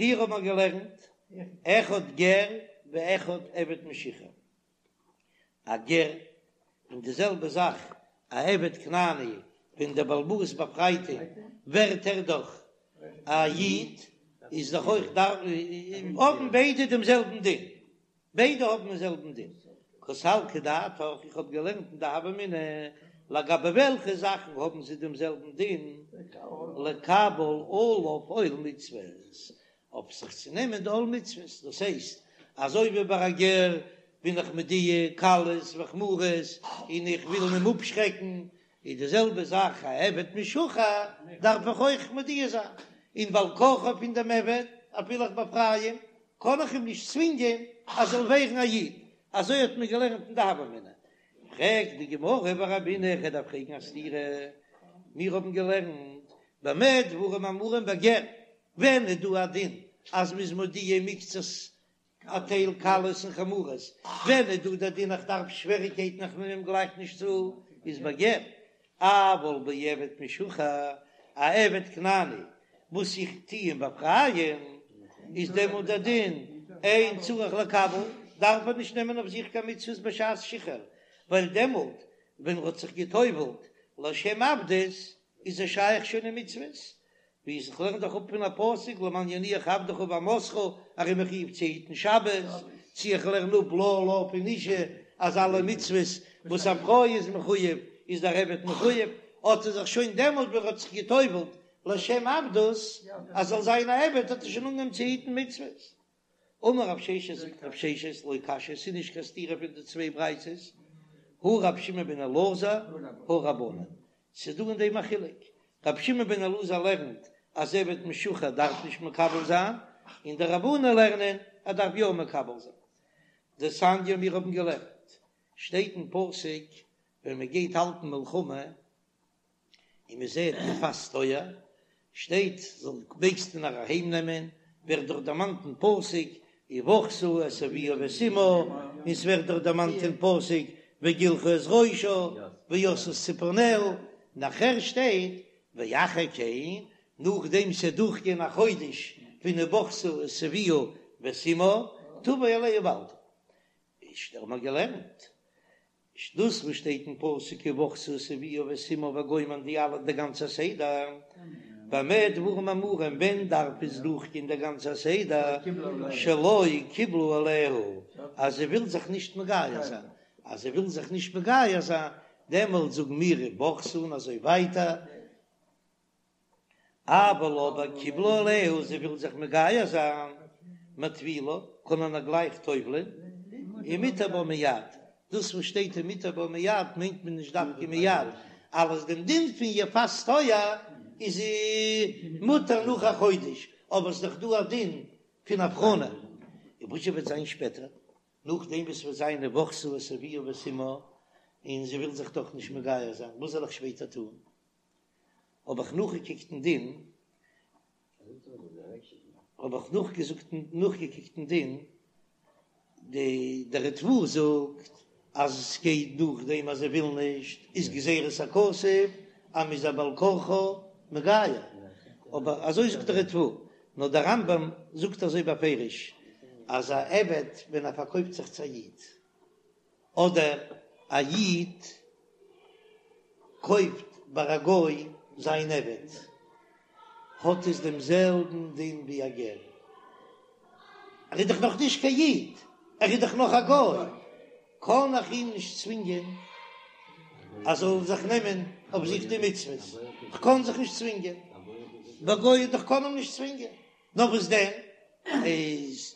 פריער האט מען געלערנט אחד גר ואחד עבד משוחרר, א גר און די זעלבע זאך א עבד כנעני, ווען דער בעל הבית באפרייט אים ווערט ער דאך א איד, איז דאך אויך האבן ביידע דעם זעלבן דין. ביידע האבן דעם זעלבן דין. קא סלקא דעתך, איך האב געלערנט אין די הוה אמינא, לגבי וועלכע זאכן האבן זיי דעם זעלבן דין, לקבל עליו עול מצוות, אויף זיך צו נעמען די עול מצוות, דאס הייסט, אזוי ווי ביי א גר בין איך מודיע קלות וחמורות און איך וויל אים אפשרעקן, איז די זעלבע זאך א עבד משוחרר דארף איך אויך מודיע זיין, און בעל כרחו פון דעם עבד אפילו איך באפריי אים קען איך אים נישט צווינגען אז זאל ווערן א איד, אזוי האט מען געלערנט אין די הוה אמינא. פרעגט די גמרא ורמינהו, איך דארף פרעגן א סתירה, מיר האבן געלערנט במה דברים אמורים בגר, ווען איז דא א דין אז מ'איז מודיע מקצת א טייל קלות און חמורות, ווען איז דא דער דין איך דארף שוועריקייטן איך נעם אים גלייך נישט צו, איז בגר, אבל בעבד משוחרר, א עבד כנעני וואס איך טו אים באפרייען, איז דעמאלט דער דין אין צריך לקבל, דארף ער נישט נעמען אויף זיך קיין מצוות בשעת שחרור, ווייל דעמאלט ווען ער האט זיך גע'טובל'ט לשם עבדות איז ער שייך שוין אין מצוות, ווי איך לערן דאך אפ פון א פסוק למען ינוח עבדך ואמתך, ער איז מחויב צו היטן שבת, צו איך לערן אפ לה לה פון אשה אז אלע מצוות וואס א פרוי איז מחויב איז דער עבד מחויב, האט ער זיך שוין דעמאלט ווען ער האט זיך גע'טובל'ט לשם עבדות אז זאל זיין א עבד האט ער שוין אנגעהויבן צו היטן מצוות. אמר רב ששת זאגט רב ששת לא קשיא ס'איז נישט קיין סתירה פון די צוויי ברייתות, הא רב שמעון בן אלעזר הא רבנן, ס'איז דא אין דעם א חילוק, רבי שמעון בן אלעזר לערנט אז עבד משוחרר דארף נישט מקבל זיין, און די רבנן לערנען ער דארף יא מקבל זיין. דתניא מיר האבן געלערנט, שטייט אין פסוק ווען מען גייט האלטן מלחמה און מען זעט יפת תואר, שטייט זאל מעגסטו נאר אהיים נעמען, ווערט דאך דערמאנט אין פסוק ובכתה את אביה ואת אמה, און ס'ווערט דאך דערמאנט אין פסוק וגלחה את ראשה ועשתה את צפרניה, נאכער שטייט ואחר כן, נאכדעם ס'איז דורכגעגאנגען א חודש פון ובכתה את אביה ואת אמה, תבוא אליה ובעלתה. איז האבן מיר געלערנט דאס וואס שטייט אין פסוק ובכתה את אביה ואת אמה וגומר די אלע די גאנצע סדר, במה דברים אמורים ווען דארף עס דורכגיין די גאנצע סדר, שלא קיבלה עליה אז זי וויל זיך נישט מגייר זיין, אז זי וויל זיך נישט מגייר זיין דעמאלט זאגן מיר ובכתה און אזוי ווייטער. אבל אבער קיבלה עליה, זי וויל זיך מגייר זיין, מטבילה, קען מען איר גלייך טובל'ען, ומותר בה מיד, דאס וואס שטייט ומותר בה מיד מיינט מען נישט דווקא מיד, אלעס דעם דין פון יפת תואר איז זי מותר נאך א חודש, אבער ס'איז דאך דא א דין פון הבחנה, און וואס וועט זיין שפעטער, נאכדעם וואס ס'וועט זיין ובכתה את אביה ואת אמה, און זי וויל זיך דאך נישט מגייר זיין, וואס זאל איך שפעטער טון? האב איך נאכגעקוקט אין דין, האב איך נאכגעזאגט נאכגעקוקט אין דין, די דער ריטב"א זאגט אז עס גייט נאכדעם אז זי וויל נישט, איז גזירת הכתוב אז מ'איז איר בעל כרחה מגייר, אבער אזוי זאגט דער ריטב"א, נאר דער רמב"ם זאגט אזוי בפירוש אז א עבד ווען ער פארקויפט זיך צו א איד, אדער א איד קויפט ביי א גוי זיין עבד, האט עס דעם זעלבן דין ווי א גר. ער איז דאך נאך נישט קיין איד, ער איז דאך נאך א גוי, קען איך אים נישט צווינגען אז ער זאל זיך נעמען אויף זיך די מצוות, כ'קען זיך נישט צווינגען, ביי גוי איך קען אים נישט צווינגען. נאר וואס דען איז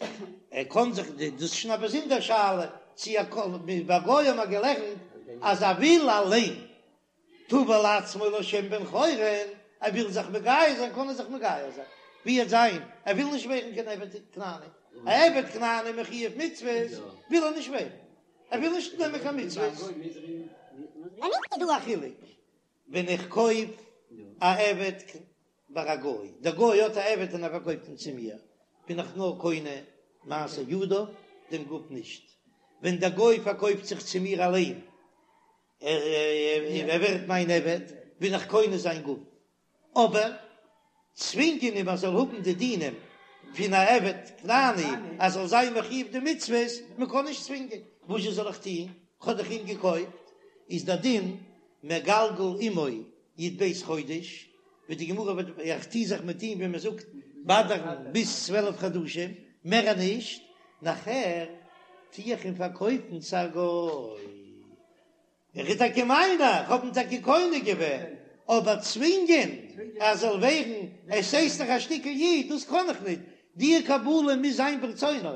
ער קען זיך די דאס איז שוין א באזונדער שאלה צו ער קען ביי גוי האבן מיר געלערנט אז ער וויל אליין טבל עצמו לשם בן חורין ער וויל זיך מגייר זיין קען ער זיך מגייר זיין ווי עט זיין ער וויל נישט ווערן קיין עבד כנעני א עבד כנעני מחויב מצוות וויל ער נישט ווערן ער וויל נישט נעמען קיין מצוות. איז דא א חילוק ווען איך קויף א עבד ביי א גוי, דער גוי האט א עבד און ער פארקויפט אים צו מיר, בין איך נאר קונה מעשה ידיו, דעם גוף נישט. ווען דער גוי פארקויפט זיך צו מיר אליין, ער ווערט מיין עבד, בין איך קונה זיין גוף. אבער צווינגען אים ער זאל האבן די דינים. פון א עבד כנעני אז זאל זיין מחויב די מצוות, מען קען נישט צווינגען, וואזשע זאל איך טון, כ'האב דאך אים געקויפט, איז דער דין מגלגל עמו י"ב חודש, ווי די גמרא וועט, איך טו זיך מיט אים ווי מען זאגט באדערן ביז 12 חדשים, מער נישט, נאכער טו איך אים פארקויפן צו א גוי. ער איז טאקע מיינער, איך האב אים טאקע קונה געווען, אבער צווינגען ער זאל ווערן, עס הייסט דאך א שטיקל איד, דאס קען איך ניט, די קבלה מוז זיין ברצונו,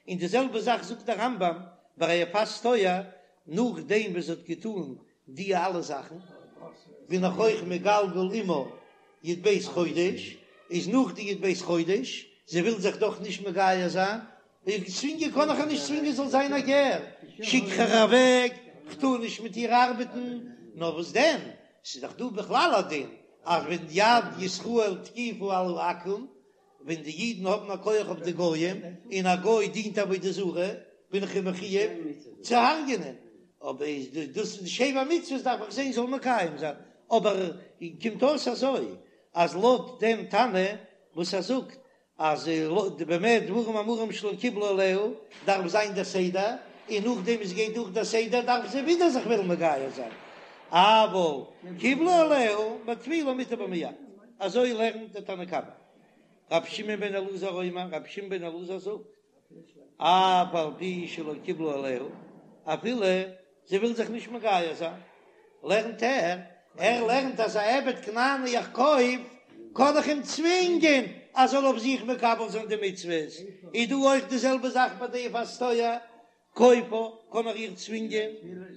און די זעלבע זאך זאגט דער רמב"ם ביי א יפת תואר, נאכדעם וואס זי האט געטאן די אלע זאכן, בין איך אויך מגלגל עמה י"ב חודש, איז נאך די י"ב חודש, זי וויל זיך דאך נישט מגייר זיין, איך צווינגען קאן איך איר נישט צווינגען זאל זיין א גר, שיק איך איר אוועק, כ'טאר נישט מיט איר ארבעטן, נאר וואס דען, ס'איז דאך דא בכלל א דין אז ווען יד ישראל תקיפה על העכו"ם, ווען די אידן האבן א כח אויף די גויים, און א גוי דינט עבודה זרה, בין איך אים מחויב צו הרג'ענען, אבער איז דאס די שבע מצוות דארף איך זען זאל מקיים זיין, אבער קומט אויס אזוי אז לויט דעם תנא וואס ער זאגט אז במה דברים אמורים שלא קיבלה עליה דארף זיין דער סדר, און נאכדעם עס גייט דורך דער סדר דארף זי ווידער זיך וועלן מגייר זיין, אבל קיבלה עליה מטבילה מותר בה מיד, אזוי לערנט דער תנא קמא. רבי שמעון בן אלעזר אומר, רבי שמעון בן אלעזר זאגט, אף על פי שלא קיבלה עליה, אפילו זי וויל זיך נישט מגייר זיין, לערנט ער, ער לערנט אז א עבד כנעני איך קויף, קען איך אים צווינגען אז זאל אויף זיך מקבל זיין די מצוות, איז דא אויך די זעלבע זאך ביי די יפת תואר, כופה, קען איך איר צווינגען,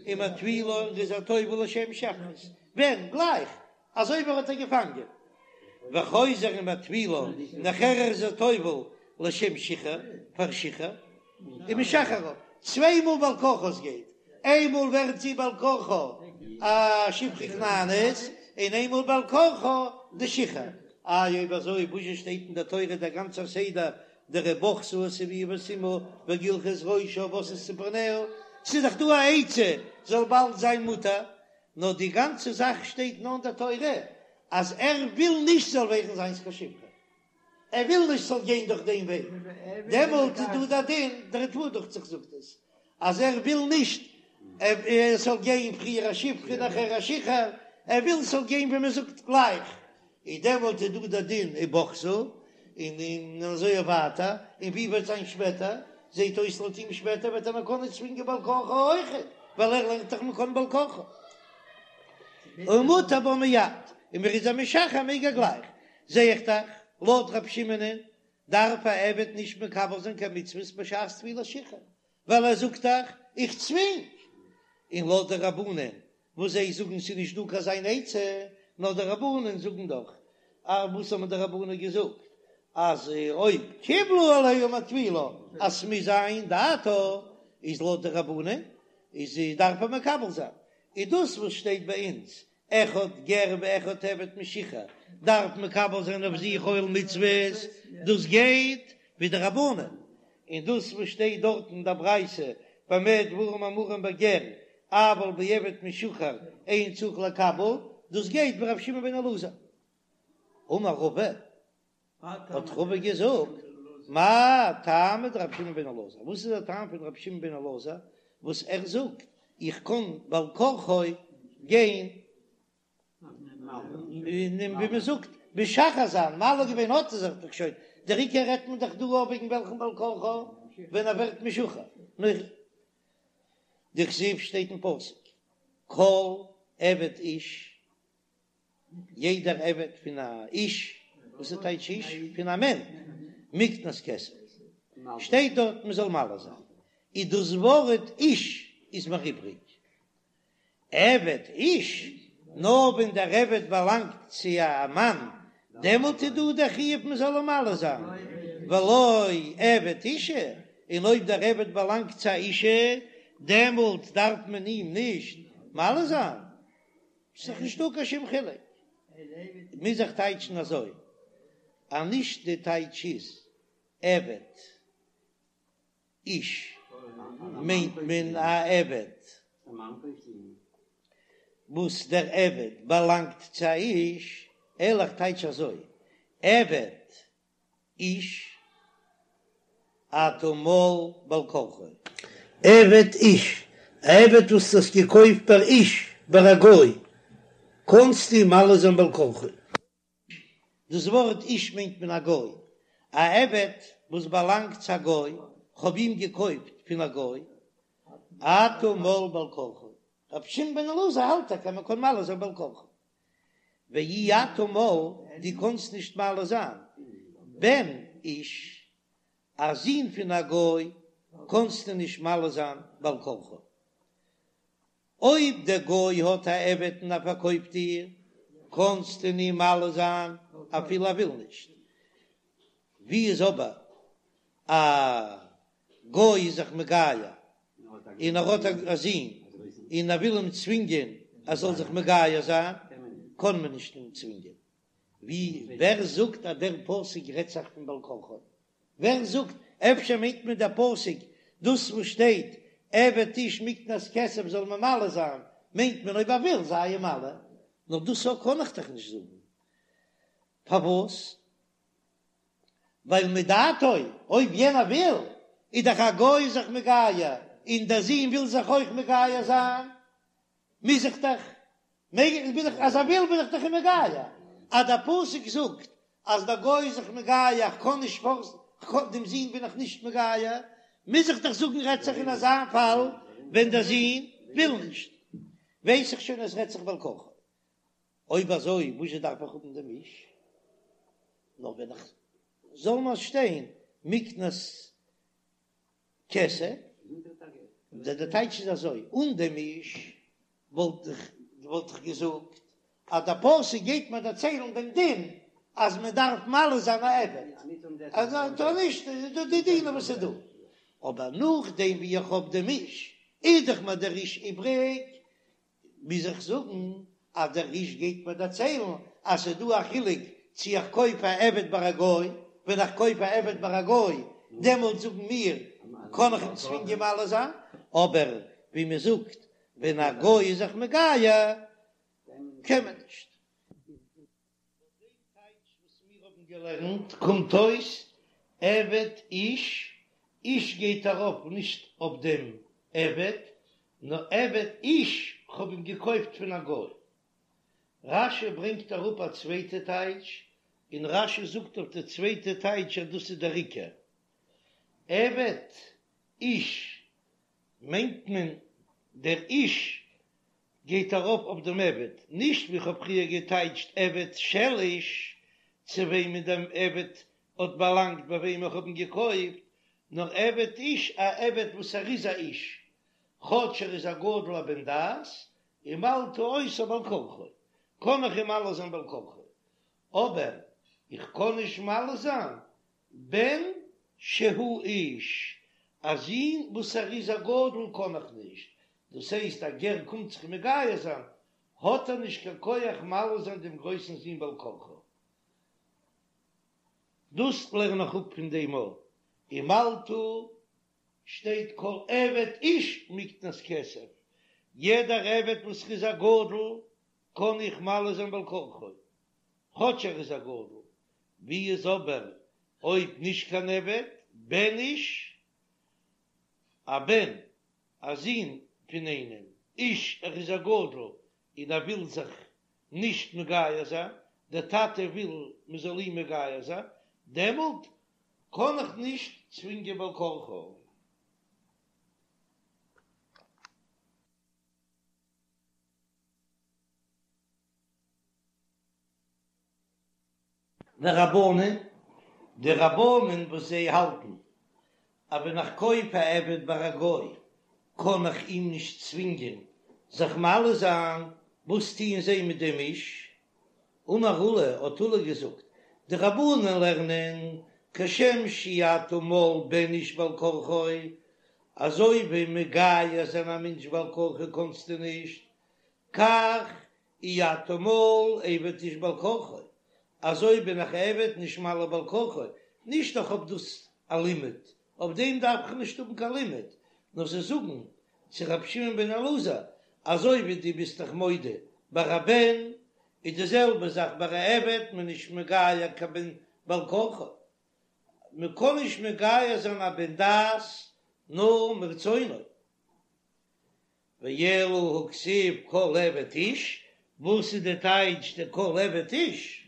ומטבילה און איז איר טובל לשם שחרות, ווען? גלייך אזוי ווי ער האט איר געפאנגען, וחוזר ומטבילה, נאכער איז ער טובל לשם שחרור, פאר שחרור, ומשחררה, צוויי מאל בעל כרחה עס גייט, איינמאל ווערט זי בעל כרחה א שפחה כנענית, און איינמאל בעל כרחה די שחרור, איי אויב אזוי וואזשע שטייט אין די תורה דער גאנצער סדר דער ובכתה את אביה ואת אמה וגלחה את ראשה ועשתה את צפרניה, ס'איז דאך דא א עצה זאל באלד זיין מותר, נאר די גאנצע זאך שטייט נאר אין די תורה אז ער וויל נישט זאל ווערן זיינס קיין שפחה, ער וויל נישט ס'זאל גיין דורך דעם וועג, דעמאלט איז דא דער דין, דער ריטב"א דוכט זיך זאגט עס, אז ער וויל נישט עס זאל גיין פריער א שפחה נאכער א שחרור, ער וויל ס'זאל גיין ווי מען זאגט גלייך, איז דעמאלט איז דא דער דין ובכתה, און און אזוי ווייטער, און ווי וועט זיין שפעטער, זעט אויס לויט אים שפעטער וועט ער נאר קענען צווינגען בעל כרחה אויכעט, ווייל ער לערנט דאך מען קען בעל כרחה. ומותר בה מיד, און מען איז איר משחרר מעג ער גלייך, זע איך דאך, לויט רב שמעונ'ען דארף א עבד נישט מקבל זיין קיין מצוות בשעת טבילת שחרור, ווייל ער זאגט דאך איך צווינג, און לויט די רבנן וואס זיי זאגן ס'איז נישט דא קיין אזוין עצה, נאר די רבנן זאגן דאך, א וואס האבן די רבנן געזאגט אז אויב קיבלה עליה מטבילה אז ס'מוז זיין דעתה, איז לויט די רבנן איז דארף ער מקבל זיין, איז דאס וואס שטייט ביי אונז אחד גר ואחד עבד משוחרר דארף מקבל זיין אויף זיך עול מצוות, דאס גייט ווי די רבנן, און דאס וואס שטייט דארט אין דער ברייתא במה דברים אמורים בגר אבל בעבד משוחרר אין צריך לקבל, דאס גייט ווי רבי שמעון בן אלעזר. אמר רבא, האט רבא געזאגט, מאי טעמא דרבי שמעון בן אלעזר, וואס איז דער טעם פון רבי שמעון בן אלעזר וואס ער זאגט איך קען בעל כרחו גיין און ווי מען זאגט משחרר זיין, מל געווען האט ער זיך דאך שוין, דער עיקר רעדט מען דאך דא אויף וועגן וועלכן בעל כרחו ווען ער ווערט משוחרר, דכתיב שטייט אין פסוק כל עבד איש יעדער עבד פון א איש, וואס איז טייטש איש? פון א מענטש, מקנת כסף, שטייט דארט מען זאל מל זיין, איז דאס ווארט איש איז מיר איבריג, עבד איש, נאר ווען דער עבד באלאנגט צו א מאן, דעמאלט איז דא דער חיוב מען זאל אים מל זיין, ולא עבד אישה, און אויב דער עבד באלאנגט צו א אישה, דעמאלט דארף מען אים נישט מל זיין. ס'איז דאך נישטא קיין שום חילוק. מוז איך טייטשן אזוי אז נישט די טייטש איז עבד איש מיינט מען א עבד וואס דער עבד באלאנגט צו א איש, אלא איך טייטש אזוי עבד איש. אתה מל בעל כרחו. עבד איש, א עבד וואס דו האסט געקויפט ביי איש, ביי א גוי, קאנסטו אים מל זיין בעל כרחו. דאס ווארט איש מיינט מען א גוי, א עבד וואס באלאנגט צו א גוי, כ'האב אים געקויפט פון א גוי, אתה מל בעל כרחו. רבי שמעון בן אלעזר האלט טאקע אז מען קען מל זיין בעל כרחו. ואי אתה מל, דו קאנסט נישט מל זיין בן איש, א זון פון א גוי קאנסטו נישט מל זיין בעל כרחו. אויב דער גוי האט א עבד און ער פארקויפט דיר, קאנסטו אים מל זיין אפילו ער וויל נישט. ווי איז אבער א גוי איז זיך מגייר און ער האט א זון און ער וויל אים צווינגען ער זאל זיך מגייר זיין, קען מען נישט אים צווינגען. ווי ווער זאגט אז דער פסוק רעדט זיך פון בעל כרחו? ווער זאגט? אפשר מיינט מען דער פסוק דאס וואס שטייט עבד איש מקנת כסף זאל מען מל זיין, מיינט מען אויב ער וויל זיי אים מל, נאר דאס קען איך דאך נישט זאגן, פארוואס? ווייל מדעתו, אויב יענער וויל, איז דאך א גוי זיך מגייר, און דער זון וויל זיך אויך מגייר זיין, מוז איך דאך, מעג איך, בין איך, אז ער וויל בין איך דאך אים מגייר. אז דער פסוק זאגט אז דער גוי איז זיך מגייר, איך קען נישט פארסן, דעם זון בין איך נישט מגייר, מוז איך דאך זאגן רעדט זיך אין אזא פאל ווען דער זון וויל נישט, ווייס איך שוין אז רעדט זיך בעל כרחו. אויב אזוי וואזשע דארף איך האבן דעם איש? נאר ווען איך זאל נאר שטיין מקנת כסף, דער טייטש איז אזוי, אן דעם איש וואלט איך וואלט איך געזאגט אז דער פסוק גייט מיר דערציילן דעם דין אז מען דארף מל זיין א עבד, אז טאר נישט איז דא די דינים וואס איז דא, אבער נאכדעם ווי איך האב דעם איש איז דאך מיר דער איש איבריג, מוז איך זאגן אז דער איש גייט מיר דערציילן אז ס'איז דא א חילוק צו איך קויף א עבד ביי א גוי, ווען איך קויף א עבד ביי א גוי דעמאלט זאגן מיר קען איך אים צווינגען מל זיין, אבער ווי מען זאגט ווען א גוי איז זיך מגייר קען מען נישט. לויט דעם טייטש וואס מיר האבן געלערנט קומט אויס עבד איש, איש גייט ארויף נישט אויף דעם עבד, נאר עבד איש, כ'האב אים געקויפט פון א גוי. רש"י ברענגט אראפ א צווייטע טייטש, און רש"י זאגט אויף די צווייטע טייטש אז דאס איז דער עיקר. עבד איש מיינט מען דער איש גייט ארויף אויף דעם עבד, נישט ווי כ'האב פריער געטייטשט עבד של איש, צו וועמען דעם עבד האט באלאנגט ביי וועם איך האב אים געקויפט, נאר עבד איש, א עבד וואס ער איז א איש, כאטש ער איז א גדול א בן דעת, ומלתה אותו בעל כרחו, קען איך אים מל זיין בעל כרחו, אבער איך קען נישט מל זיין בן שהוא איש, א זון וואס ער איז א גדול קען איך נישט, דאס הייסט א גר קומט זיך מגייר זיין, האט ער נישט קיין כח מל זיין דעם גרויסן זון בעל כרחו. דאס לערן איך אפ פון דעם א ומלתה שטייט כל עבד איש מקנת כסף, יעדער עבד וואס איז א גדול קען איך מל זיין בעל כרחו, כאטש ער איז א גדול, ווי איז אבער אויב נישט קיין עבד, בן איש, א בן, א זון פון איינעם, איש, ער איז א גדול און ער וויל זיך נישט מגייר זיין, דער טאטע וויל מען זאל אים מגייר זיין, דעמאלט קען איך נישט צווינגען בעל כרחו. ורבנן, די רבנן וואס זיי האלטן אז ווען איך קויף א עבד ביי א גוי קען איך אים נישט צווינגען זיך מל זיין, וואס טוען זיי מיט דעם איש? אמר עולא, האט עולא געזאגט, די רבנן לערנען כשם שאי אתה מל בן איש בעל כרחו, אזוי ווי מגייר זיין א מענטש בעל כרחו קענסטו נישט, כך אי אתה מל עבד איש בעל כרחו, אזוי בין איך עבד נישט מל בעל כרחו, נישט איך האב דאס א לימוד, אויף דעם דארף איך נישט האבן קיין לימוד, נאר זיי זאגן צו רבי שמעון בן אלעזר, אזוי ווי דו ביסט דאך מודה ביי א בן, איז די זעלבע זאך ביי א עבד, מען איז נישט מגייר קיין בן בעל כרחו. מען קען נישט מגייר זיין א בן דת נאר מרצונו. ואלא הכתיב כל עבד איש, וואס איז די טייטש די כל עבד איש?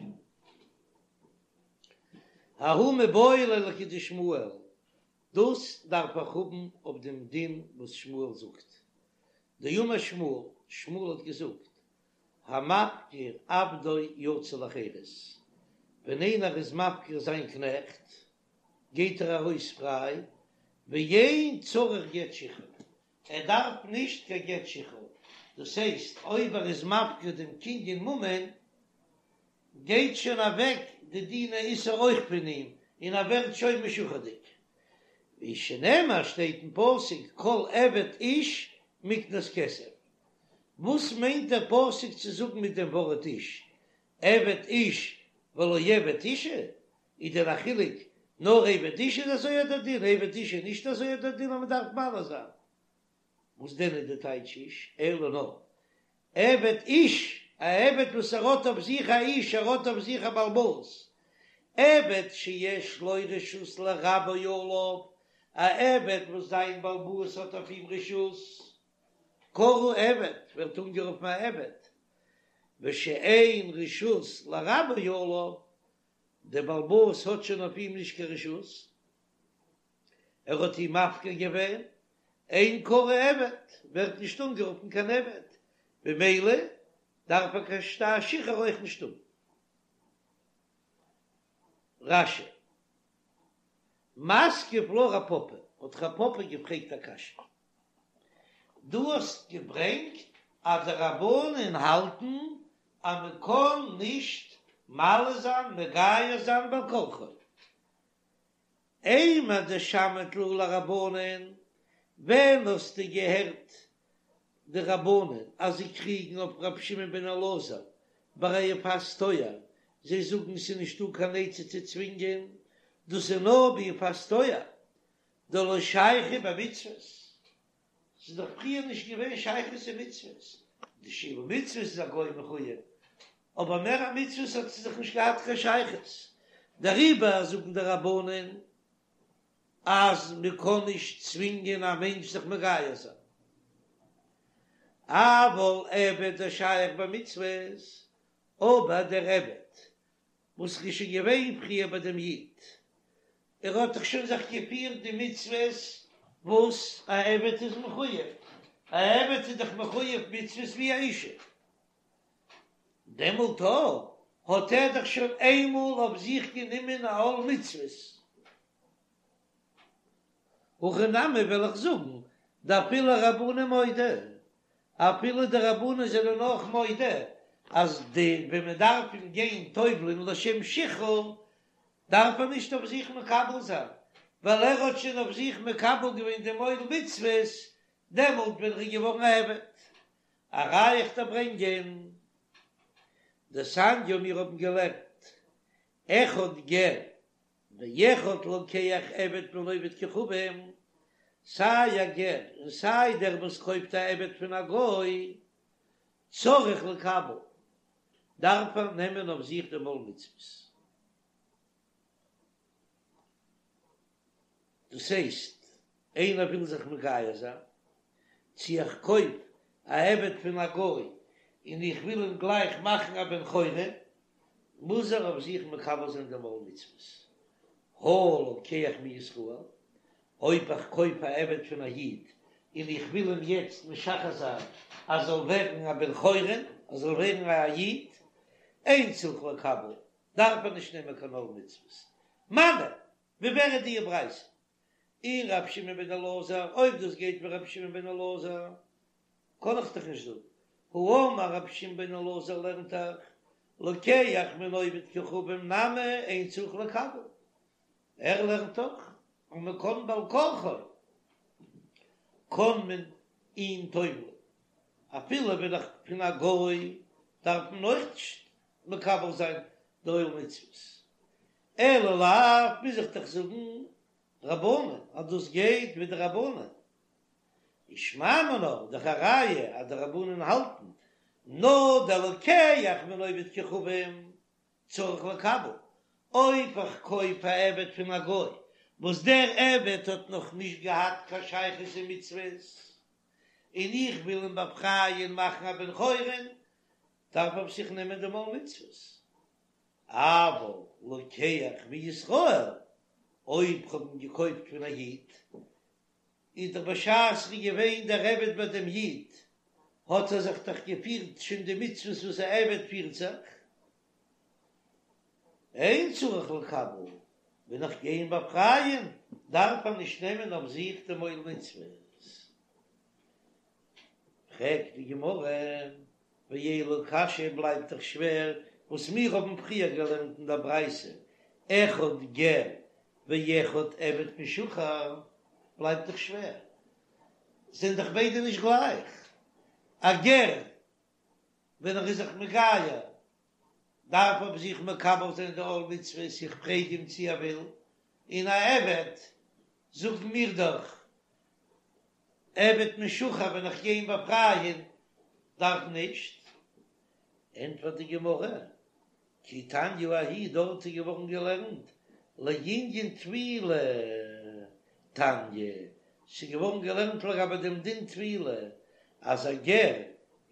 ההוא מיבעי ליה לכדשמואל, דאס דארף איך האבן אויף דעם דין וואס שמואל זאגט. דאמר שמואל, שמואל האט געזאגט, המפקיר עבדו יצא לחירות, ווען איינער איז מפקיר זיין קנעכט, גייט ער ארויס פריי, ואין צריך גט שחרור, ער דארף נישט קיין גט שחרור, דאס הייסט אויב ער איז מפקיר דעם קנין ממון, גייט שוין אוועק די דיני איסור אויך פון אים, און ער ווערט שוין משוחרר'דיג. ווי שנאמר שטייט אין פסוק כל עבד איש מקנת כסף. וואס מיינט דער פסוק צו זאגן מיט דעם ווארט איש? עבד איש ולא עבד אישה? איז דען א חילוק נאר עבד איש איז אזוי דער דין עבד אשה איז נישט אזוי דער דין אז מען דארף מל זיין? וואס דען איז די טייטש איש? אלא נאר עבד איש, א עבד וואס ער האט אויף זיך א איש, ער האט אויף זיך א בעל הבית, עבד שיש לו רשות לרבו עליו, א עבד וואס זיין בעל הבית האט אויף אים רשות, קרוי עבד, ווערט אנגערופן א עבד, ושאין רשות לרבו עליו, דער בעל הבית האט שוין אויף אים נישט קיין רשות, ער האט אים מפקיר געווען, אין קרוי עבד, ווערט נישט אנגערופן קיין עבד, במילא דארף ער קיין שטר שחרור אויך נישט האבן. רש"י, מתקיף לה רב פפא, האט רב פפא געפרעגט א קשיא, דו האסט געברענגט אז די רבנן האלטן אז מען קען נישט מל זיין מגייר זיין בעל כרחו, אימר דשמעת להו לרבנן, ווען האסטו געהערט די רבנן אז זיי קריגן אויף רבי שמעון בן אלעזר ביי א יפת תואר, זיי זאגן ס'איז נישטא קיין עצה צו צווינגען, דאס איז נאר ביפת תואר, דלא שייכא במצוות, ס'איז דאך פריער נישט געווען שייכות אין מצוות, די שבע מצוות איז א גוי מחויב, אבער מער א מצוות האט זי דאך נישט געהאט קיין שייכות, דעריבער זאגן די רבנן אז מען קען נישט צווינגען א מענטש זיך מגייר זיין, אבל עבד דשייך במצוות, אבער דער עבד וואס איז שוין געווען פריער ביי דעם איד, ער האט דאך שוין זיך געפירט די מצוות וואס א עבד איז מחויב, א עבד איז דאך מחויב מצוות ווי א אישה, דעמאלט האט ער דאך שוין איינמאל אויף זיך גענומען א עול מצוות. הכי נמי וועל איך זאגן, דאפילו רבנן מודו, אפילו די רבנן זענען אויך מודה אז די ווען מען דארף אים גיין טובל'ען לשם שחרור דארף ער נישט אויף זיך מקבל זיין, ווייל ער האט שוין אויף זיך מקבל געווען דעם עול מצוות דעמאלט ווען ער איז געווארן א עבד. א ראיה איך דיר ברענגען, דתניא מיר האבן געלערנט אחד גר ואחד לוקח עבד מן העובד כוכבים, סיי א גר און סיי דער וואס קויפט א עבד פון א גוי, צריך לקבל, דארף ער נעמען אויף זיך דעם עול מצוות. דאס הייסט, איינער וויל זיך מגייר זיין, צו איך קויף א עבד פון א גוי און איך וויל אים גלייך מאכן א בן חורין, מוז ער אויף זיך מקבל זיין דעם עול מצוות. הא לוקח מישראל, אויב איך קויף א עבד פון א איד און איך וויל אים יעצט משחרר זיין אז זאל ווערן א בן חורין, ער זאל ווערן א איד, אין צריך לקבל, דארף ער נישט נעמען קיין עול מצוות. מני, ווי ווער איז די ברייתא? אי רבי שמעון בן אלעזר, אויב דאס גייט ווי רבי שמעון בן אלעזר, קען איך דאך נישט זאגן, האמר רבי שמעון בן אלעזר לערנט דאך, לוקח מן העובד כוכבים נמי אין צריך לקבל, ער לערנט דאך אז מען קען בעל כרחו קען מען אים טובל'ן, אפילו ווען איך פון א גוי דארף מען אויך נישט מקבל זיין די עול מצוות, אלא לאו מוז איך דאך זאגן רבנן אז דאס גייט ווי די רבנן, ושמע מינה דאך א ראיה אז די רבנן האלטן נאר דער לוקח מן העובד כוכבים צריך לקבל. אויב איך קויף א עבד פון א גוי וואס דער עבד האט נאך נישט געהאט קיין שייכות אין מצוות, און איך וויל אים באפרייען מאכן א בן חורין, דארף ער אויף זיך נעמען דעם עול מצוות. אבל לוקח מישראל, אויב כ'האב אים געקויפט פון א איד, איז דאך בשעת ר'איז געווען דער עבד ביי דעם איד, האט ער זיך דאך געפירט שוין די מצוות וואס א עבד פירט זיך, אין צריך לקבל, ווען איך גיי אים באפרייען דארף ער נישט נעמען אויף זיך דעם עול מצוות. פרעגט די גמרא, ואלא קשיא בלייבט דאך שווער וואס מיר האבן פריער געלערנט אין דער ברייתא, אחד גר ואחד עבד משוחרר, בלייבט דאך שווער, זענען דאך ביידע נישט גלייך, א גר ווען ער איז זיך מגייר דארף אויף זיך מקבל זיין די עול מצוות, איך פרעג אים צי ער וויל, און א עבד זאגן מיר דאך עבד משוחרר ווען איך גיי אים באפרייען דארף נישט, ענטפערט די גמרא, כי תניא ההיא דארט איז געווארן געלערנט לענין טבילה תניא, ס'איז געווארן געלערנט לגבי דעם דין טבילה אז א גר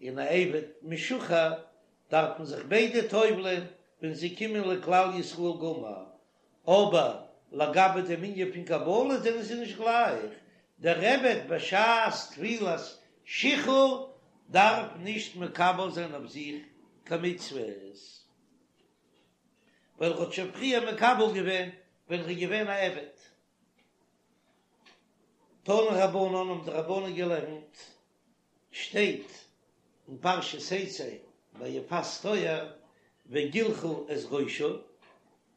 און א עבד משוחרר דארפן זיך ביידע טובל'ען ווען זיי קומען לכלל ישראל גמור, אבער לגבי דעם ענין פון קבלה זענען זיי נישט גלייך, דער עבד בשעת טבילת שחרור דארף נישט מקבל זיין אויף זיך קיין מצוות, ווייל ער האט שוין פריער מקבל געווען ווען ער איז געווען א עבד. תנו רבנן האבן די רבנן געלערנט, שטייט אין פרשת תצא ביי יפת תואר וגלחה את ראשה,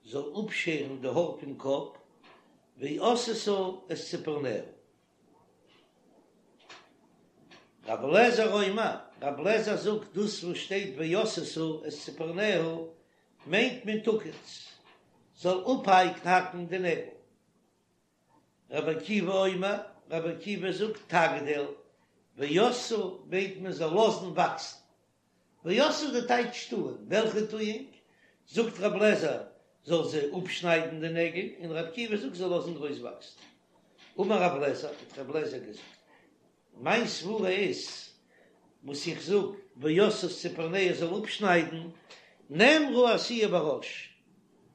זאל אפשערן די האר פון קאפ, ועשתה את צפרניה. רבי אליעזר אומר, רבי אליעזר זאגט דאס וואס שטייט ועשתה את צפרניה מיינט מען תקוץ, זאל אפהאקן די נעגל. רבי עקיבא אומר, רבי עקיבא זאגט תגדיל, ועשתה מיינט מען זאל לאזן וואקסן. ועשתה די טייטש טוען, וועלכע טואונג? זאגט רבי אליעזר זאל זי אפשניידן די נעגל, און רבי עקיבא זאגט זאל לאזן גרויס וואקסן. אמר רבי אליעזר, האט רבי אליעזר געזאגט, מיין סברה איז, וואס איך זאג, ועשתה את צפרניה זאל אפשניידן, נאמרה עשיה בראש,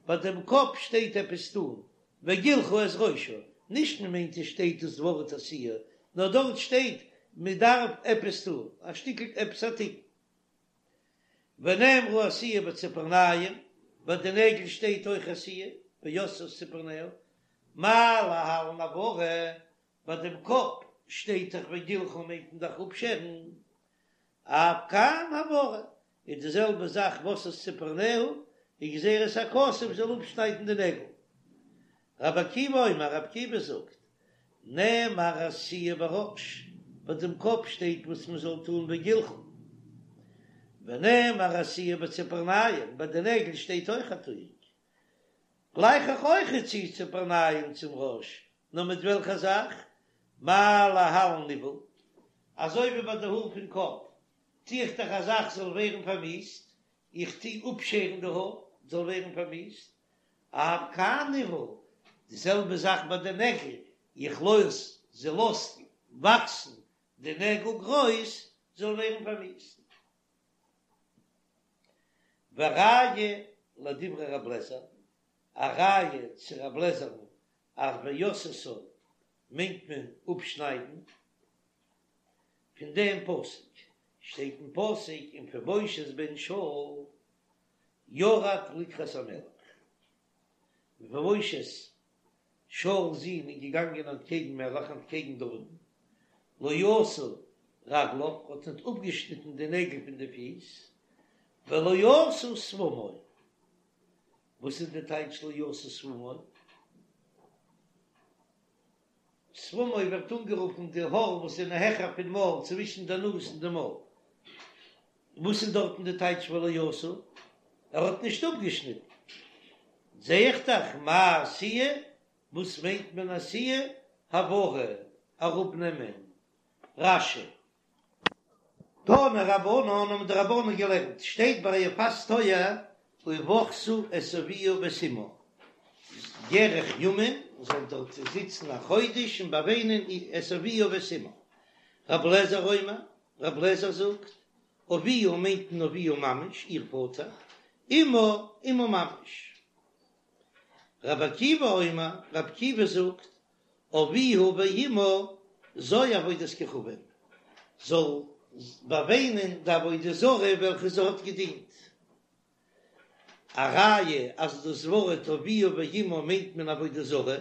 ביי דעם קאפ שטייט עפעס טון, וגלחה את ראשה, נישט מען מיינט עס שטייט דאס ווארט עשיה, נאר דארט שטייט מען דארף עפעס טון, א שטיקל עפעס א תיקון. ונאמרה עשיה בציפורניים, ביי די נעגל שטייט אויך עשיה, ועשתה את צפרניה, מה להלן הבערה, ביי דעם קאפ שטייט דאך וגלחה מיינט מען דאך אפשערן, אף כאן הבערה, איז די זעלבע זאך ועשתה את צפרניה, איז גזירת הכתוב זאל אפשניידן די נעגל. רבי עקיבא אומר, רבי עקיבא זאגט, נאמר עשיה בראש, ביי דעם קאפ שטייט וואס מען זאל טון וגלחה, ונאמר עשיה בציפורניים, ביי די נעגל שטייט אויך א טואונג, גלייך איך אויך צו ציפורניים צום ראש, נאר מיט וועלכע זאך? מה להלן ניוול, אזוי ווי ביי די האר פון קאפ, טו איך דאך א זאך זאל ווערן פארמיאוסט, איך טו אפשערן די האר זאל ווערן פארמיאוסט, אף כאן ניוול, די זעלבע זאך ביי די נעגל, איך לאז זי לאזט וואקסן די נעגל גרויס זאל ווערן פארמיאוסט. וראיה לדברי רב לעזער, א ראיה צו רב לעזער'ן אז ועשתה מיינט מען אפשניידן, פון דעם פסוק שטייט אין פסוק ומפיבושת בן שאול ירד לקראת המלך, מפיבושת שאול'ס זון איז געגאנגען אנטקעגן מלך אנטקעגן דוד'ן, לא עשה רגליו האט ניט אפגעשניטן די נעגל פון די פיס, ולא עשה שפמו, וואס איז די טייטש לא עשה שפמו? שפמו ווערט אנגערופן די האר וואס זענען העכער פון מויל צווישן די נאז און די מויל. וואס איז דארטן די טייטש ולא עשה? ער האט נישט אפגעשניטן. זע איך דאך מה עשיה, וואס מיינט מען עשיה? הבערה, אראפנעמען. רש"י. תנו רבנן האבן די רבנן געלערנט, שטייט ביי יפת תואר ובכתה את אביה ואת אמה. ירח ימים, זאל דארט זיצן א חודש און באוויינען את אביה ואת אמה. רב לעזער אומר, רב לעזער זאגט, אביה מיינט מען אביה ממש, איר פאטער, אמה אמה ממש. רבי עקיבא אומר, רבי עקיבא זאגט, אביה ואמה זו עבודת כוכבים, זאל באוויינען די עבודה זרה וועלכע זי האט געדינט. א ראיה אז דאס ווארט אביה ואמה מיינט מען עבודה זרה,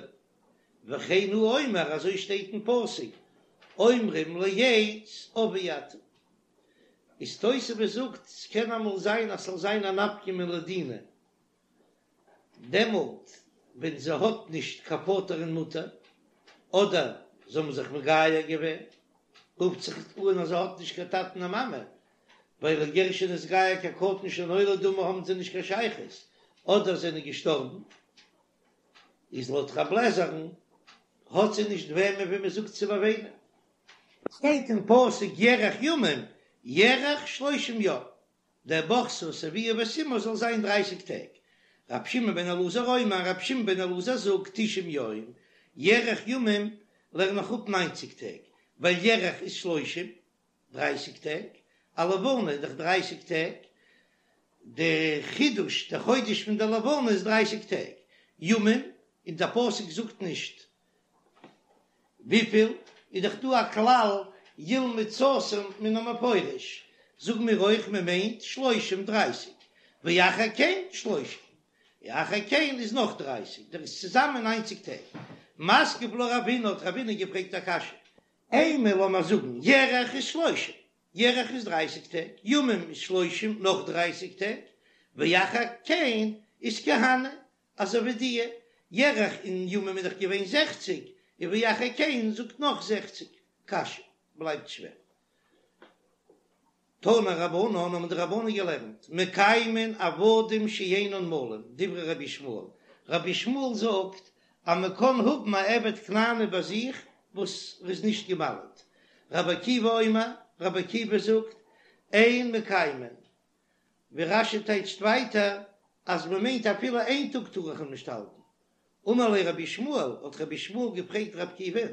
וכן הוא אומר אזוי שטייט אין פסוק אומרים לעץ אבי אתה. איז תוספות זאגט ס'קען אמאל זיין אז ס'זאל זיין א נפקא מינה לדינא דעמאלט ווען זי האט נישט קיין פאטער און מוטער, אדער זיי האבן זיך מגייר געווען, רופט זיך אן אז זי האט נישט קיין טאטן און מאמע, ווייל א גר שנתגייר כקטן שנולד דמי האבן זיי נישט קיין שייכות, אדער זענען געשטארבן, איז לויט רב לעזער'ן האט זי נישט וועמען ווי מען זאגט צו באוויינען. שטייט אין פסוק ירח ימים, ירח שלושים יום, דער ובכתה את אביה ואת אמה זאל זיין דרייסיג טעג. רבי שמעון בן אלעזר אומר, רבי שמעון בן אלעזר זאגט תשעים יום, ירח ימים לערן איך אפ ניינציג טעג, ווייל ירח איז שלושים, דרייסיג טעג, א לבנה איז דאך דרייסיג טעג, די חידוש, די חודש פון די לבנה איז דרייסיג טעג, ימים, און דער פסוק זאגט נישט וויפיל, איז דאך דא א כלל ילמד סתום מן המפורש, זאגן מיר אויך מען מיינט שלושים דרייסיג, ואחר כן שלושים, ואחר כן איז נאך דרייסיג, דער איז צוזאמען ניינציג טעג. מתקיף לה רבינא האט רבינא געפרעגט א קשיא, אימא לאמיר זאגן ירח איז שלושים, ירח איז דרייסיג טעג, ימים איז שלושים נאך דרייסיג טעג, ואחר כן איז כי הני, אזוי ווי די ירח און ימים איז דאך געווען זעכציג, און ואחר כן זאגט נאך זעכציג, קשיא בלייבט שווער. תנו רבנן האבן די רבנן געלערנט, מקיימין עבדים שאינן מולים, דברי רבי ישמעאל, רבי ישמעאל זאגט אז מען קען האבן א עבד כנעני ביי זיך וואס איז נישט געמל'ט, רבי עקיבא אומר, רבי עקיבא זאגט, אין מקיימין, ווי רש"י טייטשט ווייטער אז מען מיינט אפילו איין טאג טאר איך אים נישט האלטן. אמר ליה רבי ישמעאל, האט רבי ישמעאל געפרעגט רבי עקיבא'ן,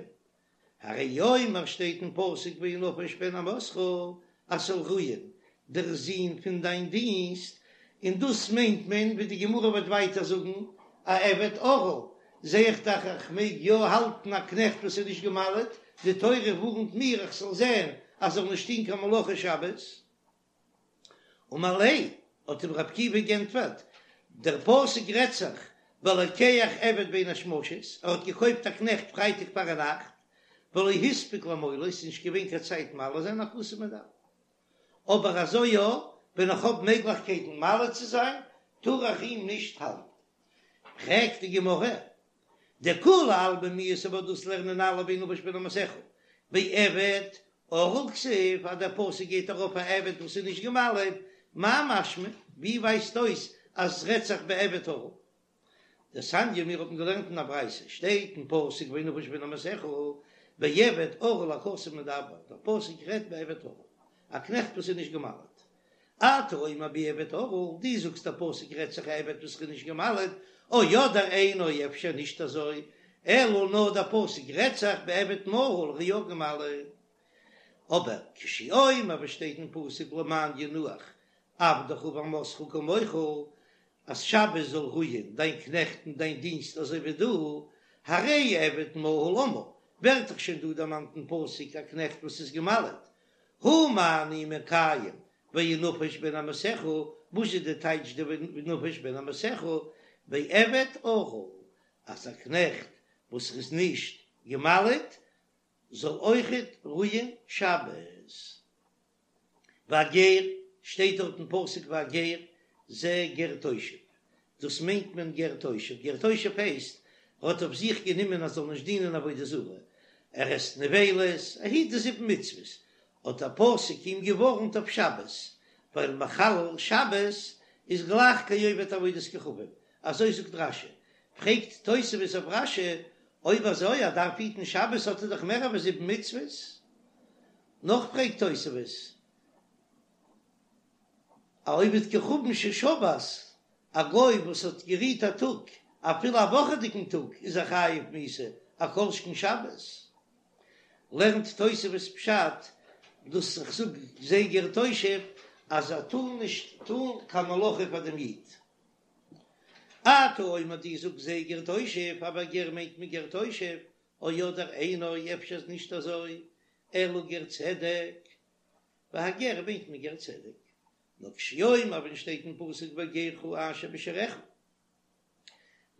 הרי הוא אומר שטייט אין פסוק וינפש בן אמתך אז ס'זאל רוען דער זון פון דיין דינסט, און דאס מיינט מען ווי די גמרא וועט ווייטער זאגן א עבד ערל, זע איך דאך איך מעג יא האלטן א קנעכט וואס איז נישט געמל'עט, די תורה ווארנט מיר איך זאל זען אז זאל נישט טון קיין מלאכה שבת. אמר ליה, האט אים רב עקיבא גענטפערט, דער פסוק רעדט זיך בלוקח עבד בין השמשות, ער האט געקויפט א קנעכט פרייטאג פארנאכט, ולא הספיק למולו, ס'איז נישט געווען קיין צייט מל זיין הכתוב מדבר. אבער אזוי יא, ווען איך האב מעגליכקייטן מל צו זיין, טאר איך אים נישט האלטן. פרעגט די גמרא, דכולי עלמא מיהת אבער דאס לערנען אלע וינפש בן אמתך בעבד ערל כתיב אז דער פסוק גייט ארויף א עבד וואס איז נישט געמל'עט, מאי משמע? ווי ווייזט אויס אז עס רעדט זיך בעבד ערל? דתניא מיר האבן געלערנט אין א ברייתא שטייט אין פסוק וינפש בן אמתך בעבד ערל הכתוב מדבר, דער פסוק רעדט בעבד ערל, א קנעכט וואס איז נישט געמל'עט. אתה אומר בעבד ערל, דו זאגסט דער פסוק רעדט זיך א עבד וואס איז נישט געמל'עט, או אדער אינו אפשר נישט אזוי, אלא נאר דער פסוק רעדט זיך בעבד מהול ער איז יא געמל'עט. אבער כשהוא אומר וואס שטייט אין פסוק למען ינוח עבדך ואמתך כמוך, אז שבת זאל רוען דיין קנעכט און דיין דינסט אזוי ווי דו, הרי עבד מהול אמור, ווערט דאך שוין דא דערמאנט אין פסוק א קנעכט וואס איז געמל'עט, הא מה אני מקיים וינפש בן אמתך, וואס איז די טייטש די וינפש בן אמתך, בעבד ערל, אז א קנעכט וואס איז נישט געמל'עט זאל אויכעט רוען שבת. והגר, שטייט דארט אין פסוק והגר, זה גר תושב, דאס מיינט מען גר תושב, גר תושב הייסט ער האט אויף זיך גענומען אז זאל נישט דינען עבודה זרה, ער עסט נבילות, ער היט די זיבן מצוות, האט דער פסוק אים געווארנט אויף שבת, ווייל מחלל שבת איז גלייך כעובד עבודת כוכבים, אזוי זאגט רש"י, פרעגט תוספות אויף רש"י, אויב אזוי ער דארף היטן שבת האט ער דאך מער ווי זיבן מצוות, נאך פרעגט תוספות, א עובד כוכבים ששבת, א גוי וואס האט גערוהט א טאג. אפילו א וואכעדיגן טאג איז ער חייב מיתה, א כל שכן שבת. לערנט תוספות פשט דאס איך זאג זה גר תושב אז ער טאר נישט טאן קיין מלאכה פאר דעם איד. אתה אומר דו זאגסט זה גר תושב אבער גר מיינט מען גר תושב, או אדער אינו אפשר איז נישט אזוי אלא גר צדק, והגר מיינט מען גר צדק, נאר כשהוא אומר ווען שטייט אין פסוק וגרך אשר בשעריך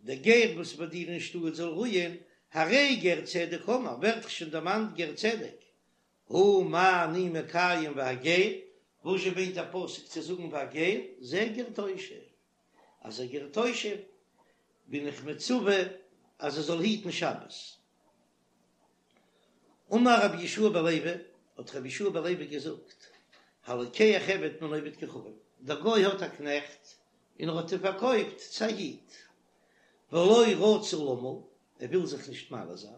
דער גר וואס ביי דיר אין שטאט זאל רוען, הרי גר צדק אמור, ווערט דאך שוין דערמאנט גר צדק, הא מה אני מקיים והגר, וואזשע מיינט דער פסוק צו זאגן והגר, זה גר תושב, אז א גר תושב בין איך מצווה אז ער זאל היטן שבת. אמר רבי יהושע בן לוי, האט רבי יהושע בן לוי געזאגט, הלוקח עבד מן העובד כוכבים, דער גוי האט א קנעכט און ער האט אים פארקויפט צו א איד, ולא רצה למול, ער וויל זיך נישט מל זיין,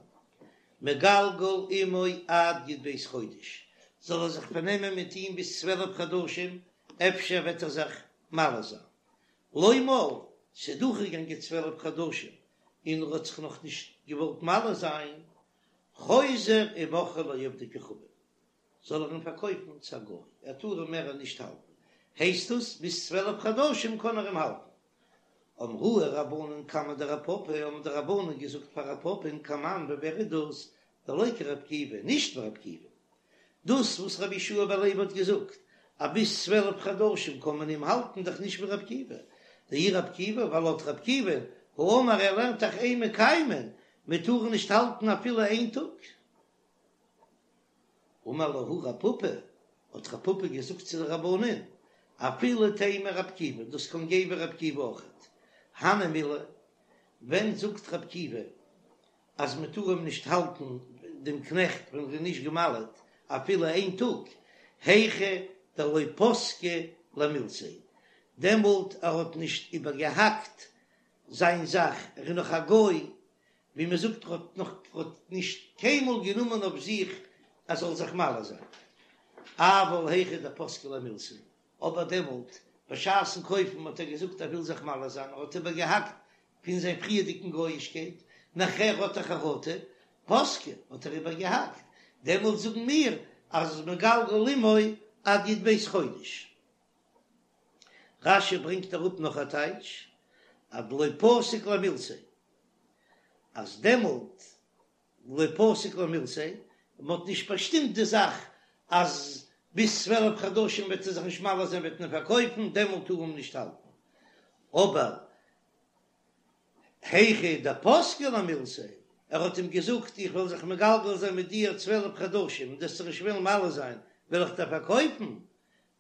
מגלגל עמו עד י"ב חודש, זאל ער זיך פארנעמען מיט אים ביז 12 חדשים, אפשר וועט ער זיך מל זיין. לא מל, ס'איז דורכגעגאנגען 12 חדשים און ער האט זיך נאך נישט געוואלט מל זיין, חוזר ומוכרו לעובדי כוכבים, זאל ער אים פארקויפן צו א גוי, ער טאר אים מער נישט האלטן, הייסט עס ביז 12 חדשים קען ער אים האלטן. אמרוה רבנן קמיה דרב פפא, האבן די רבנן געזאגט פאר רב פפא'ן כמאן ווי ווער איז דאס, דלא כרבי עקיבא, נישט ווי רבי עקיבא. דאס וואס רבי יהושע בן לוי האט געזאגט אז ביז 12 חדשים קען מען אים האלטן דאך נישט ווי רבי עקיבא, דאי רבי עקיבא, ווייל לויט רבי עקיבא, האמר ער לערנט דאך אין מקיימין, מען טאר נישט האלטן אפילו איין טאג. אמר להו רב פפא, האט רב פפא געזאגט צו די רבנן, אפילו תימא רבי עקיבא, דאס קען גיין ווי רבי עקיבא אויכעט. הני מילי, ווען זאגט רבי עקיבא אז מען טאר אים נישט האלטן דעם קנעכט ווען ער איז נישט געמל'עט אפילו איין טאג, היכא דלא פסקה למילתיה, דעמאלט ער האט נישט איבערגעהאקט זיין זאך, ער איז נאך א גוי, ווי מען זאגט ער האט נאך האט נישט קיינמאל גענומען אויף זיך ער זאל זיך מל זיין, אבל היכא דפסקה למילתיה, אבער דעמאלט בשעת'ן קויפן האט ער געזאגט ער וויל זיך מל זיין, ער האט איבערגעהאקט פון זיין פריערדיגן גויאישקייט, נאכער האט ער חרטה, פסקה האט ער איבערגעהאקט, דעמאלט זאגן מיר אז מגלגל עמו עד י"ב חודש. רש"י ברענגט אראפ נאך א טייטש, אז דלא פסיק למילתיה, אז דעמאלט לא פסיק למילתיה, מען האט נישט באשטימט די זאך אז ביז 12 חדשים וועט ער זיך נישט מל זיין וועט מען פארקויפן, דעמאלט טאר מען נישט האלטן, אבער היכא דפסקה למילתיה, ער האט אים געזאגט איך וועל זיך מגלגל זיין מיט דיר 12 חדשים און דו וועסט זיך נישט וועלן מל זיין וועל איך דיר פארקויפן,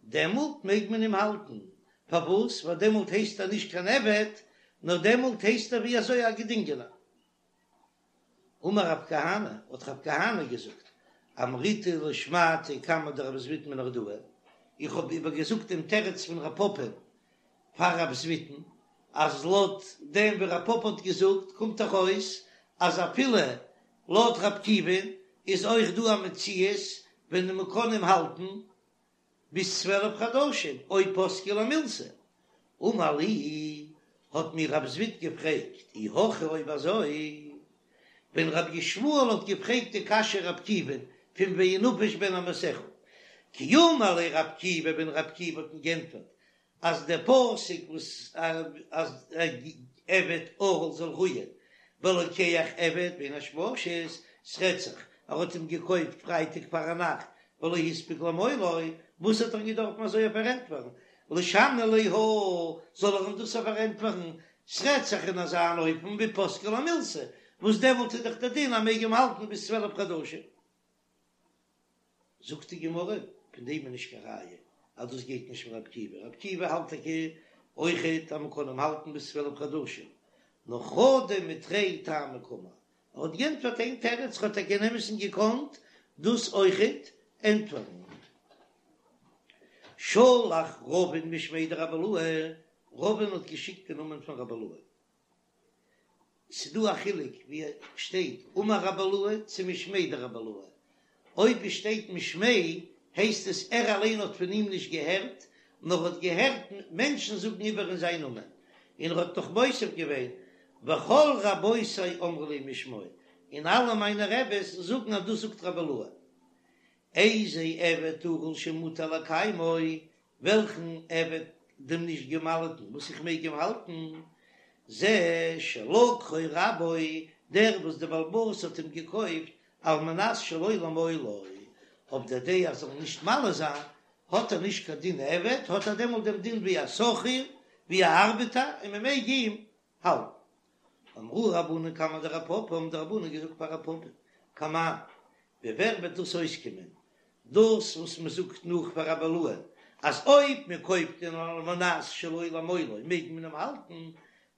דעמאלט מעג מען אים האלטן, פארוואס? ווייל דעמאלט הייסט ער נישט קיין עבד, נאר דעמאלט הייסט ער ווי אזוי א געדינגענער. אמר רב כהנא, האט רב כהנא געזאגט, אמריתה לשמעתא קמיה דרב זביד מנהרדעא, איך האב איבערגעזאגט דעם תירוץ פון רב פפא פאר רב זביד'ן, אז לויט דעם ווי רב פפא האט געזאגט קומט דאך אויס אז אפילו לויט רב עקיבא'ן איז אויך דא א מציאות ווען מען קען אים האלטן ביז 12 חדשים אויב פסקה למילתיה. אמר לי, האט מיר רב זביד געפרעגט, אי הכי אויב אזוי, ווען רבי ישמעאל האט געפרעגט די קשיא רב עקיבא'ן פון וינפש בן אמתך, כי אמר ליה רב עקיבא ווען רב עקיבא האט אים גענטפערט אז דער פסוק וואס אז עבד ערל זאל רוען ולוקח עבד בין השמשות, ס'רעדט זיך ער האט אים געקויפט פרייטאג פארנאכט ולא הספיק למולו, וואס האט ער געדארפן אזוי פארענטפערן? לישני ליה הא, זאל ער אים דאס פארענטפערן, ס'רעדט זיך אין אזא אן אופן ווי פסקה למילתיה, וואס דעמאלט איז דאך דער דין אז מ'מעג אים האלטן ביז 12 חדשים. זאגט די גמרא, פון דעם איז נישט קיין ראיה אז דאס גייט נישט ווי רב עקיבא, רב עקיבא האלט טאקע אויכעט אז מען קען אים האלטן ביז 12 חדשים, נאר חדא מתרי טעמי קאמר, ער האט גענטפערט איין תירוץ, האט טאקע אין אמת'ן געקאנט דאס אויכעט ענטפערן. שלח רבין משמיה דרבי אילעא, רבין האט געשיקט אין נאמען פון רבי אילעא. ס'דא א חילוק ווי שטייט אמר רבי אילעא צו משמיה דרבי אילעא, אויב עס שטייט משמיה הייסט עס ער אליין האט פון אים נישט געהערט, נאר האט געהערט מענטשן זאגן איבער אין זיין נאמען, און ער האט נאך מוסיף געווען. וכל רבותי אמרו לי משמו, און אלע מיינע רעבעס זאגן אז דאס זאגט רבי אילעא. איזה עבד ערל שמותר לקיימו, וועלכן עבד דעם נישט געמל'טן וואס איך מעג אים האלטן, זה שלקחו רבו, דער וואס דער בעל הבית האט אים געקויפט על מנת שלא למולו, אויף דער דעה אז ער זאל נישט מל זיין, האט ער נישט קיין דין עבד, האט ער דעמאלט דעם דין ווי א שכיר, ווי א ארבעטער, און מען מעג אים האלטן. אמרוה רבנן קמיה דרב פפא, האבן די רבנן געזאגט פאר רב פפא, כמאן, ווי ווער וועט דאס אויסקומען, דאס וואס מען זאגט נאך פאר רבי אילעא, אז אויב מען קויפט אים על מנת שלא למולו מעג מען אים האלטן,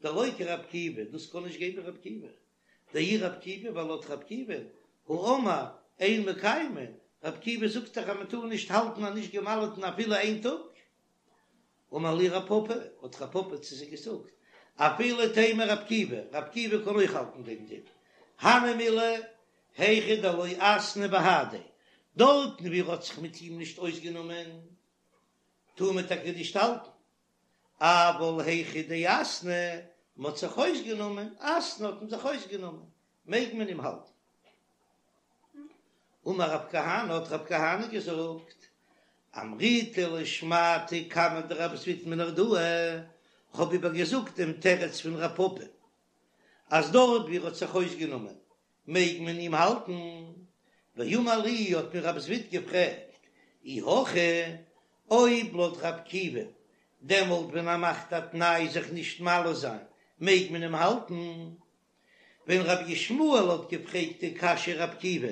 דלא כרבי עקיבא, דאס קען נישט גיין ווי רבי עקיבא, דאי רבי עקיבא, ווייל לויט רבי עקיבא, האמר אין מקיימין, רבי עקיבא זאגט דאך אז מען טאר נישט האלטן א נישט געמל'טן אפילו איין טאג. אמר להו רב פפא, האט רב פפא צו זיי געזאגט, אפילו תימא רבי עקיבא, רבי עקיבא קען אויך האלטן דעם דין, הני מילי היכא דלא אתנהו בהדיה, דארטן ווי ער האט זיך מיט אים נישט אויסגענומען, טאר מען טאקע נישט האלטן, אבל היכא דאתנהו, מען האט זיך אויסגענומען, אתנהו האט מען זיך אויסגענומען, מעג מען אים האלטן. אמר רב כהנא, האט רב כהנא געזאגט, אמריתה לשמעתא קמיה דרב זביד מנהרדעא, כ'האב איבערגעזאגט דעם תירוץ פון רב פפא, אז דארט ווי ער האט זיך אויסגענומען מעג מען אים האלטן, ואמר לי האט מיר רב זביד געפרעגט, אי הכי, אויב לויט רב עקיבא, דעמאלט ווען ער מאכט א תנאי זיך נישט מל זיין, מעג מען אים האלטן? ווען רבי ישמעאל האט געפרעגט די קשיא רב עקיבא,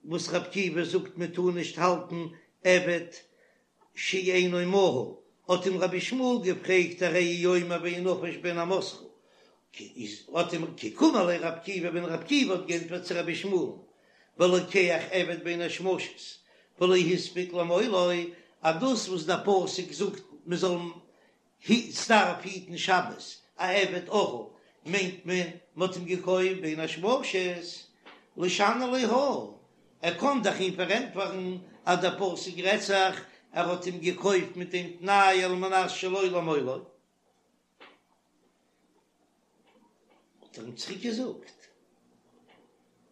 וואס רב עקיבא זאגט מען טאר נישט האלטן עבד שאינו מהול, האט אים רבי ישמעאל געפרעגט הרי הוא אומר וינפש בן אמתך, האט אים כי קאמר ליה רב עקיבא ווען רב עקיבא האט גענטפערט צו רבי ישמעאל'ן בלוקח עבד בין השמשות ולא הספיק למולו, אז דאס וואס דער פסוק זאגט מען זאל ס'דארף היטן שבת, א עבד ערל מיינט מען מ'האט אים געקויפט בין השמשות, לישני ליה הא, ער קען דאך אים פארענטפערן אז דער פסוק רעדט זיך ער האט אים געקויפט מיט דעם תנאי על מנת שלא למולו. האט ער אים צוריק געזאגט,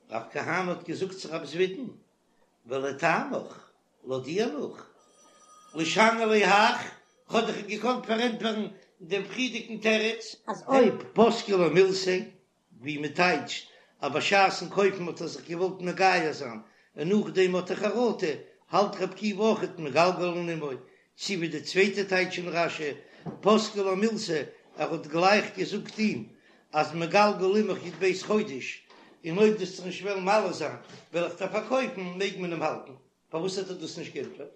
רב כהנא האט געזאגט צו רב זביד'ן, ולטעמיך, לויט דיר נאך, לישני ליה הך, כ'האב דאך אים געקאנט פארענטפערן דעם פריערדיגן תירוץ. אז אויב. אויב פסקה ליה מילתא, ווי מען טייטשט אז בשעת'ן קויפן האט ער זיך געוואלט מגייר זיין און נאכדעם האט ער חרטה, האלט רב עקיבא אויכעט מגלגלין עמו, צי ווי די צווייטע טייטש אין רש"י, פסקה ליה מילתא, ער האט גלייך געזאגט אים אז מגלגל עמך י"ב חודש, און אויב דו וועסט זיך נישט וועלן מל זיין וועל איך דיר פארקויפן, מעג מען אים האלטן. פארוואס האט ער דאס נישט גענטפערט?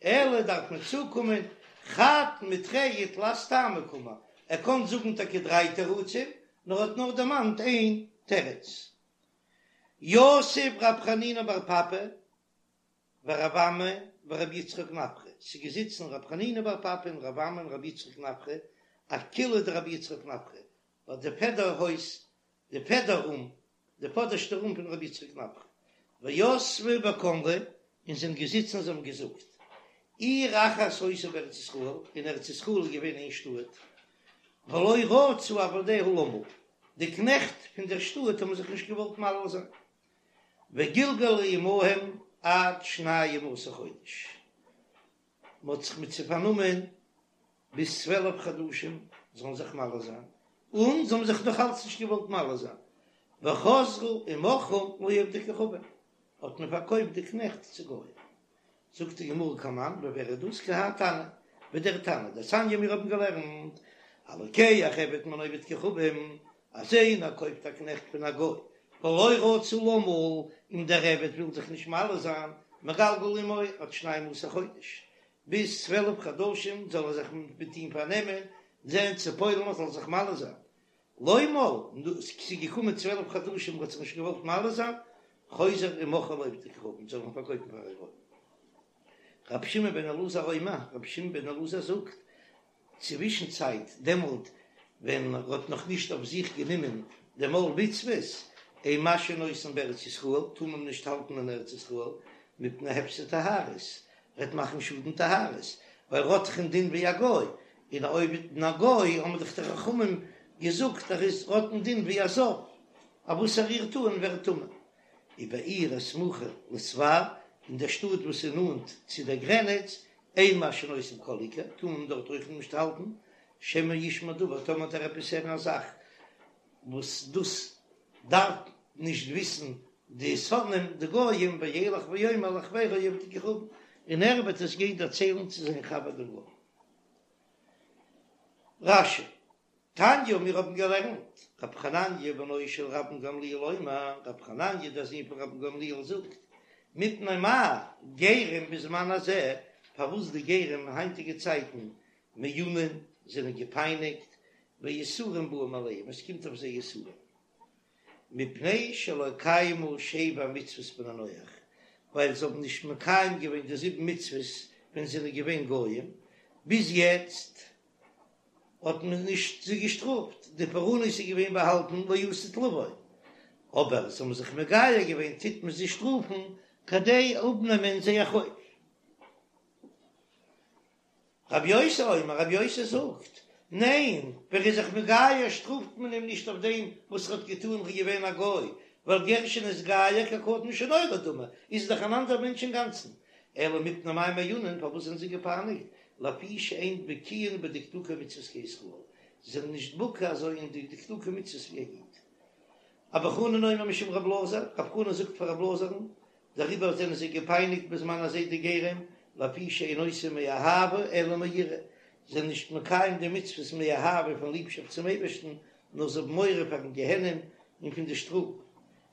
אלא דארף מען צוקומען חד מתרי ותלת טעמי קאמר, ער קען זאגן טאקע דריי תירוצים, נאר האט נאר דערמאנט איין תירוץ. יתיב רב חנינא בר פפא ורב אמי ורבי יצחק נפחא, ס'איז געזיצן רב חנינא בר פפא און רב אמי און רבי יצחק נפחא, אקילעא דרבי יצחק נפחא, ביי די פעדער הויז, די פעדער רום, די פאדערשטע רום פון רבי יצחק נפחא, ויתבי וקאמרי, און זיי זענען געזיצן און זיי האבן געזאגט, עיר אחת היתה בארץ ישראל, אין ארץ ישראל איז געווען איין שטאט, ולא רצו עבדיה למול, די קנעכט פון דער שטאט האבן זיך נישט געוואלט מל זיין, וגלגלו עמהם עד שנים עשר חודש, מען האט זיך מיט זיי פארנומען ביז 12 חדשים זאלן זיך מל זיין, און זיי האבן זיך נאך אלץ נישט געוואלט מל זיין, וחזרו ומכרום לעובדי כוכבים, האט מען פארקויפט די קנעכט צו גוים. זאגט די גמרא כמאן, ווי ווער איז דאס? כי האי תנא, ווי דער תנא דתניא מיר האבן געלערנט, הלוקח עבד מן העובד כוכבים, אז איינער קויפט א קנעכט פון א גוי, ולא רצה למול, און דער עבד וויל זיך נישט מל זיין, מגלגל עמו עד שנים עשר חודש, ביז 12 חדשים זאל ער זיך מיט אים פארנעמען, זען צו פועל'ן ער זאל זיך מל זיין, לא מל, ס'איז געקומען 12 חדשים ער האט זיך נישט געוואלט מל זיין, חוזר ומוכרו לעובדי כוכבים, זאל מען פארקויפן פאר א גוי. רבי שמעון בן אלעזר אומר, רבי שמעון בן אלעזר זאגט, צווישן צייט דעמאלט ווען ער האט נאך נישט אויף זיך גענומען דעם עול מצוות, אין משהין אותן בארץ ישראל, טאר מען נישט האלטן אין ארץ ישראל, מפני הפסד טהרות, וועט מאכן שאדן טהרות, ווייל ער האט דאך א דין ווי א גוי, און אויב א גוי האבן דאך די חכמים. געזאגט ער איז האט א דין ווי א זב, אז וואס ער רירט אן ווערט טמא. ובעיר הסמוכה לספר, אין דער שטאט וואס איז נאנט צו דער גרעניץ, אין משהין אותם כל עיקר, טאר מען דארט אויך נישט האלטן, שמא ישמע דבר, טאמער וועט ער עפעס הערן א זאך וואס דאס דארף נישט וויסן די שונאים די גויים, וילך ויאמר לחברו עובד כוכבים, און ער וועט עס גיין דערציילן צו זיין חבר דעם גוי. רש"י, תניא, מיר האבן געלערנט, רב חנניה בנו של רבן גמליאל אומר, רב חנניה דער זון פון רבן גמליאל זאגט, מפני מה גרים בזמן הזה, פארוואס די גרים אין היינטיגע צייטן מעונין זענען געפייניגט, ויסורים באים עליהם, עס קומט אויף זיי יסורים, מפני שלא קיימו שבע מצוות בני נח, ווייל זיי האבן נישט מקיים געווען די זיבן מצוות ווען זיי זענען געווען גויים, ביז יעצט האט מען נישט זיי געשטראפט, די פורענות איז געווען באהאלטן לעתיד לבוא, אבער זיי האבן זיך מגייר געווען טוט מען זיי שטראפן כדי אפנעמען זייער חוב. רבי יוסי אומר, רבי יוסי זאגט, ניין, ווען ער איז זיך מגייר שטראפט מען אים נישט אויף דעם וואס ער האט געטאן ער איז געווען א גוי, ווייל גר שנתגייר כקטן שנולד דמי, איז דאך אן אנדער מענטש אינגאנצן, אלא מפני מה מעונין, פארוואס זענען זיי געפייניגט, לפי שאין בקיאין בדקדוקי מצוות כישראל, זיי זענען נישט בקי אזוי אין די דקדוקי מצוות ווי א איד. אבא חנן אומר משום רב אלעזר, רב חנן זאגט פאר רב אלעזר'ן, דעריבער זענען זיי געפייניגט בזמן הזה די גרים, לפי שאין עושים מאהבה אלא מיראה, זיי זענען נישט מקיים די מצוות מאהבה פון ליבשאפט צום אייבערשטן, נאר זיי האבן מורא פארן גיהנום און פון די שטראף.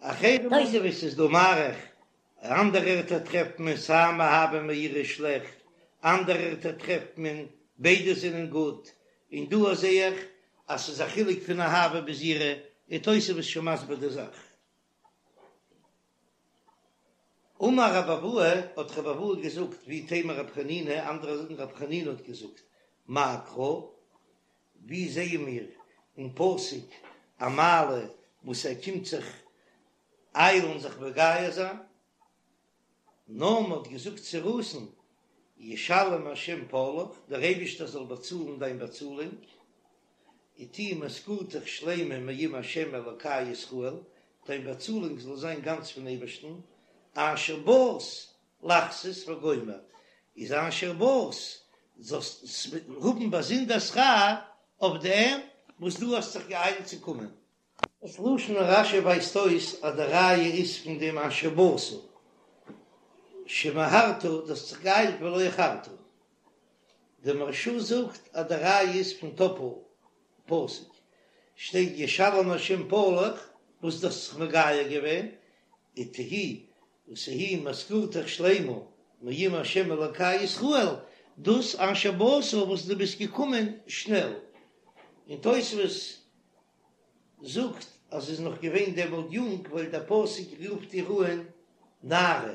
אחרים תוספות איז דא מאריך, אנדערע ערטער טרעפט מען סיי מאהבה מיראה שלעכט, אנדערע ערטער טרעפט מען ביידע זענען גוט, און דא זעה איך אז ס'איז א חילוק פון אהבה ביז יראה, און תוספות שוין מסביר די זאך. אמר רב אבהו, האט רב אבהו געזאגט, ואיתימא רב חנינא, אנדערע זאגן רב חנינא האט געזאגט, מאי קרא, ווי זעען מיר אין פסוק א מעלה וואס ער קומט זיך איילן זיך מגייר זיין? נעמי האט געזאגט צו רות'ן, ישלם השם פעלך, דער אייבישטער זאל באצאלן דיין באצאלונג, ותהי משכורתך שלימה מעם השם אלוקי ישראל, דיין באצאלונג זאל זיין גאנץ פון אייבערשטן, אשר באת לחסות וגומר, איז אשר באת, זאלסט האבן באזונדער שכר אויף דעם וואס דו האסט זיך געאיילט צו קומען. דאס לשון רש"י ווייזט אויס אז די ראיה איז פון דעם אשר באת, שמהרת, דו האסט זיך געאיילט ולא איחרת. דער מהרש"א זאגט אז די ראיה איז פון טאפל פסוק, שטייט ישלם השם פעלך וואס דו האסט זיך מגייר געווען, ותהי ותהי משכורתך שלימה מעם השם אלוקי ישראל, דאס אשר באת וואס דו ביסט געקומען שנעל. און תוספות זאגט אז זי איז נאך געווען דעמאלט יונג ווייל דער פסוק רופט איר אן נערה.